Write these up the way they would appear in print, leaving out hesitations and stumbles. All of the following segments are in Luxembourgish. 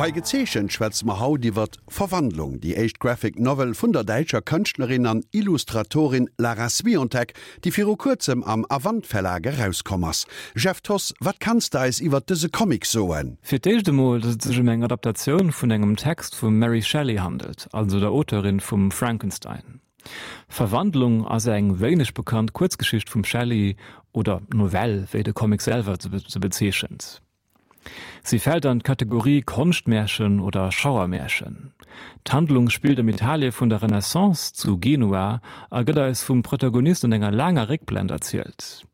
Bei Gezeechent schwätze mer haut iwwert Verwandlung, déi éischt Graphic Novel vun der däitscher Kënschtlerin an Illustratorin Lara Swiontek, déi viru kuerzem am Avant Verlag erauskomm ass. Jeff Thoss, wat kanns de eis iwwert dëse Comic soen? Fir d'éischt emol, datt et sech ëm eng Adaptatioun vun engem Text vum Mary Shelley handelt, also der Auteurin vum Frankenstein. Verwandlung ass eng wéineg bekannt Kuerzgeschicht vum Shelley, oder Novell, wéi de Comic selwer se bezeechent. Si fält an d'Kategorie Konschtmärchen oder Schauermärchen. D'Handlung spillt am Italie vun der Renaissance zu Genua a gëtt eis vum Protagonist an enger laanger Réckblend erzielt.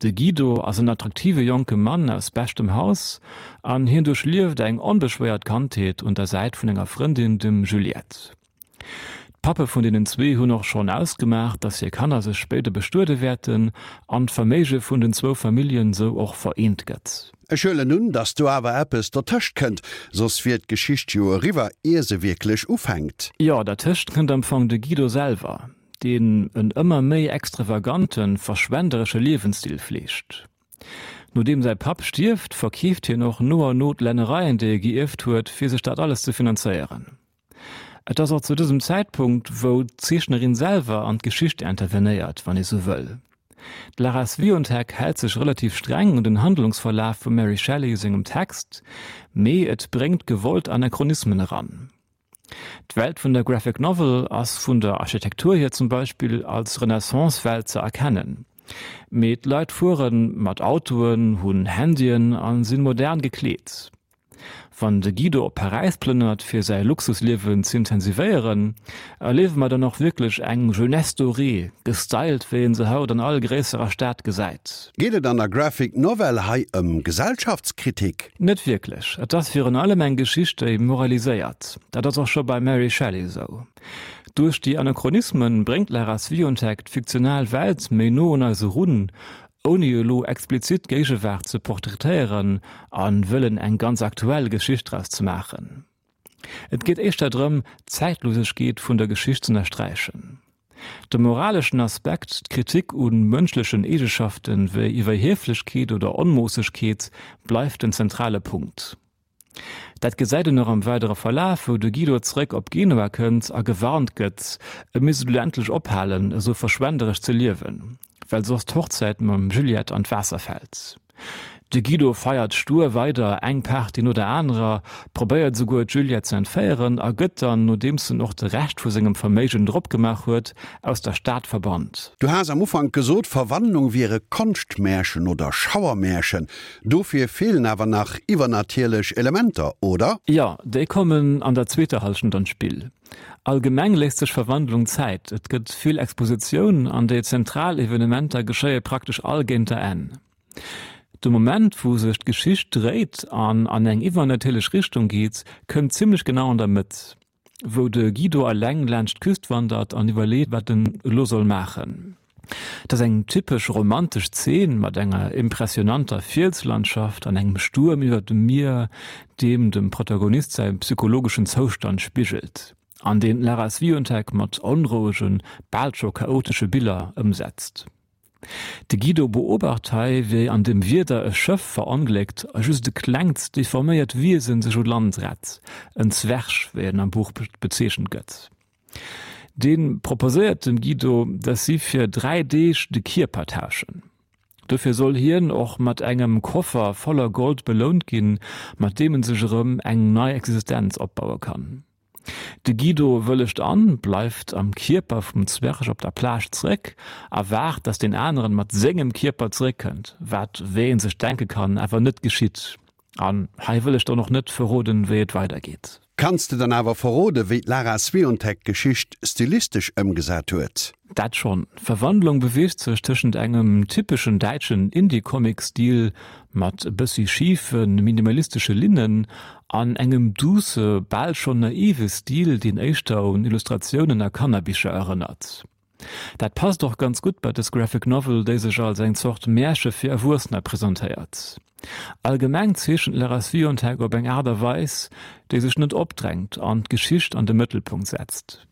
De Guido ass en attraktive jonke Mann aus beschtem Haus an hien duerchlieft eng onbeschwéiert Kandheet un der Säit vun enger Frëndin, dem Juliette. D'Pappe vun deenen zwee hunn och schonn ausgemaach, dass hir Kanner sech spéider bestuede wäerten an d'Verméige vun den zwou Familljen sou och vereent gëtt. Ech huelen un, dass do awer eppes dertëscht kënnt, soss wier d'Geschicht jo eriwwer, ier se wierklech ufänkt. Jo, dertëscht kënnt am Fong de Guido selwer, deen en ëmmer méi extravaganten, verschwenderesche Liewensstil fleegt. Nodeem säi Papp stierft, verkeeft hien och no an no d'Lännereien, déi e gierft huet, fir sech dat alles ze finanzéieren. Et ass och zu dësem Zäitpunkt, wou d'Zeechnerin selwer an d'Geschicht intervenéiert, wann ee sou wëll. D'Lara Swiontek hält sech relativ streng un den Handlungsverlaf vum Mary Shelley sengem Text, mee et bréngt gewollt Anachronismen eran. D'Welt vun der Graphic Novel ass vun der Architektur hier zum Beispill als Renaissance-Welt ze erkennen, mee d'Leit fuere mat Autoen, hunn Handyen a sinn modern gekleet. Wann de Guido op Paräis plënnert fir säi Luxusliewen z'intensivéieren, erliewe mer dann och wierklech eng Jeunesse dorée, gestylt wéi een se haut an all gréisserer Stad gesäit. Geet et an der Graphic Novel hei ëm Gesellschaftskritik? Net wierklech. Et ass virun allem eng Geschicht déi moraliséiert. Dat ass och scho beim Mary Shelley esou. Duerch déi Anachronismen bréngt d'Lara Swiontek d'fiktional Welt méi no un eis erun, ouni elo explizit d'Géigewaart ze portraitéieren a wëllen eng ganz aktuell Geschicht draus ze maachen. Et geet éischter drëm, d'Zäitlosegkeet vun der Geschicht z'ënnersträichen. De moraleschen Aspekt, d'Kritik u mënschlechen Eegeschafte wéi Iwwerhieflechkeet oder Onmoossegkeet bleift den zentrale Punkt. Dat gesäit een och am weidere Verlaf, wou de Guido zeréck op Genua kënnt a gewarnt gëtt, e misst elo endlech ophalen, esou verschwenderesch ze liewen, well soss d'Hochzäit mam Juliette an d'Waasser fält. De Guido feiert stur weider eng Party no der anerer, probéiert esouguer d'Juliette ze entféieren a gëtt dann, nodeems en och de Rescht vu sengem Verméigen drop gemaach huet, aus der Stad verbannt. Du has am Ufank gesot, Verwandlung wier e Konschtmärchen oder Schauermärchen. Dofir feelen awer nach iwwernatierlech Elementer, oder? Jo, déi kommen an der zweeter Hallschent an d'Spill. Allgemeng léisst sech Verwandlung Zäit, et gëtt vill Expositioun an déi zentral Evenementer geschéie praktesch all géint der Enn. De Moment, wou sech d'Geschicht dréit an an eng iwwernatierlech Richtung geet, kënnt zimmlech genau an der Mëtt. wou de Guido eleng laanscht d'Küst wandert an iwwerleet, wat en elo soll maachen. Et ass eng typesch romantesch Zeen mat enger impressionanter Fielslandschaft an engem Stuerm iwwer dem Mier, deem dem Protagonist säi psychologeschen Zoustand spigelt an deen d'Lara Swiontek mat onrouegen, bal scho chaotesche Biller ëmsetzt. De Guido beobacht hei, wéi an dem Wieder e Schëff verongléckt a just e klengt, deforméiert Wiesen sech u Land rett, en Zwerg, wéi en am Buch bezeechent gëtt. Dee proposéiert dem Guido, dass si fir 3 Deeg de Kierper tauschen. Dofir soll hien och mat engem Koffer voller Gold belount ginn, mat deem en sech erëm eng nei Existenz opbaue kann. De Guido wëllegt an, bleift am Kierper vum Zwerg op der Plage zeréck a waart, dass deen aneren mat sengem Kierper zeréckkënnt, wat, wéi een sech denke kann, awer net geschitt. An hei wëll ech dann och net verroden, wéi et weidergeet. Kanns de dann awer verroden, wéi d'Lara Swiontek d'Geschicht stilistesch ëmgesat huet? Dat schonn. D'Verwandlung beweegt sech tëschent engem typeschen däitschen Indie-Comic-Stil mat e bëssi schife minimalistesche Linnen an engem duusse, bal schonn naive Stil, deen éischter un Illustratiounen a Kannerbicher erënnert. Dat passt och ganz gutt bei dës Graphic Novel, déi sech als eng Zort Märche fir Erwuessener presentéiert. Allgemeng zeechent d'Lara Swiontek op eng Aart a Weis, déi sech net opdrängt an d'Geschicht an de Mëttelpunkt setzt.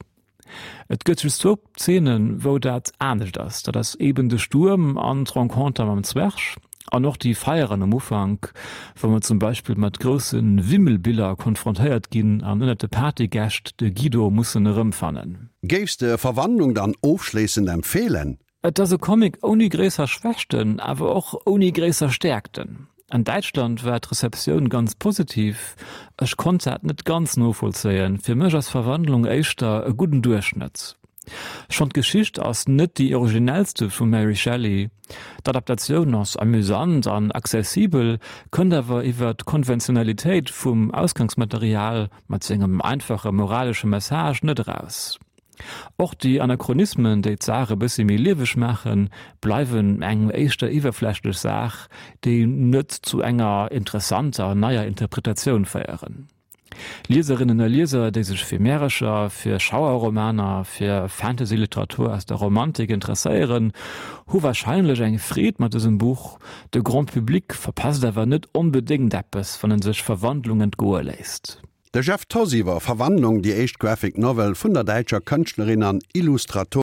Et gëtt just zwou Zeenen, wou dat anescht ass, dat ass eben de Stuerm an d'Renconter mam Zwerg. An och déi Feieren am Ufank, wou mer zum Beispill mat grousse Wimmelbiller konfrontéiert ginn an ënnert de Partygäscht de Guido mussen erëmfannen. Géifs de Verwandlung dann ofschléissend empfeelen? Et ass e Comic ouni gréisser Schwächten, awer och ouni gréisser Stäerkten. An Däitschland war d'Receptioun ganz positiv, ech konnt dat net ganz novollzéien, fir mech ass Verwandlung éischter e gudden Duerchschnëtt. Schonn d'Geschicht ass net déi originellste vum Mary Shelley, d'Adaptatioun ass amüsant an accessibel, kënnt awer iwwer d'Konventionalitéit vum Ausgangsmaterial mat sengem einfache moralesche Message net eraus. Och déi Anachronismen, déi d'Saach e bëssi méi lieweg maachen, bleiwen eng éischter iwwerflächlech Saach, déi net zu enger interessanter neier Interpretatioun féieren. Lieserinnen a Lieser, déi sech fir Märercher, fir Schauerromaner, fir Fantasy-Literatur aus der Romantik interesséieren, hu warscheinlech eng Freed mat dësem Buch. De Grand Public verpasst awer net onbedéngt eppes, wann en sech Verwandlung entgoe léisst. De Jeff Thoss iwwer Verwandlung, déi éischt Graphic Novel vun der däitscher Kënschtlerin an Illustratorin.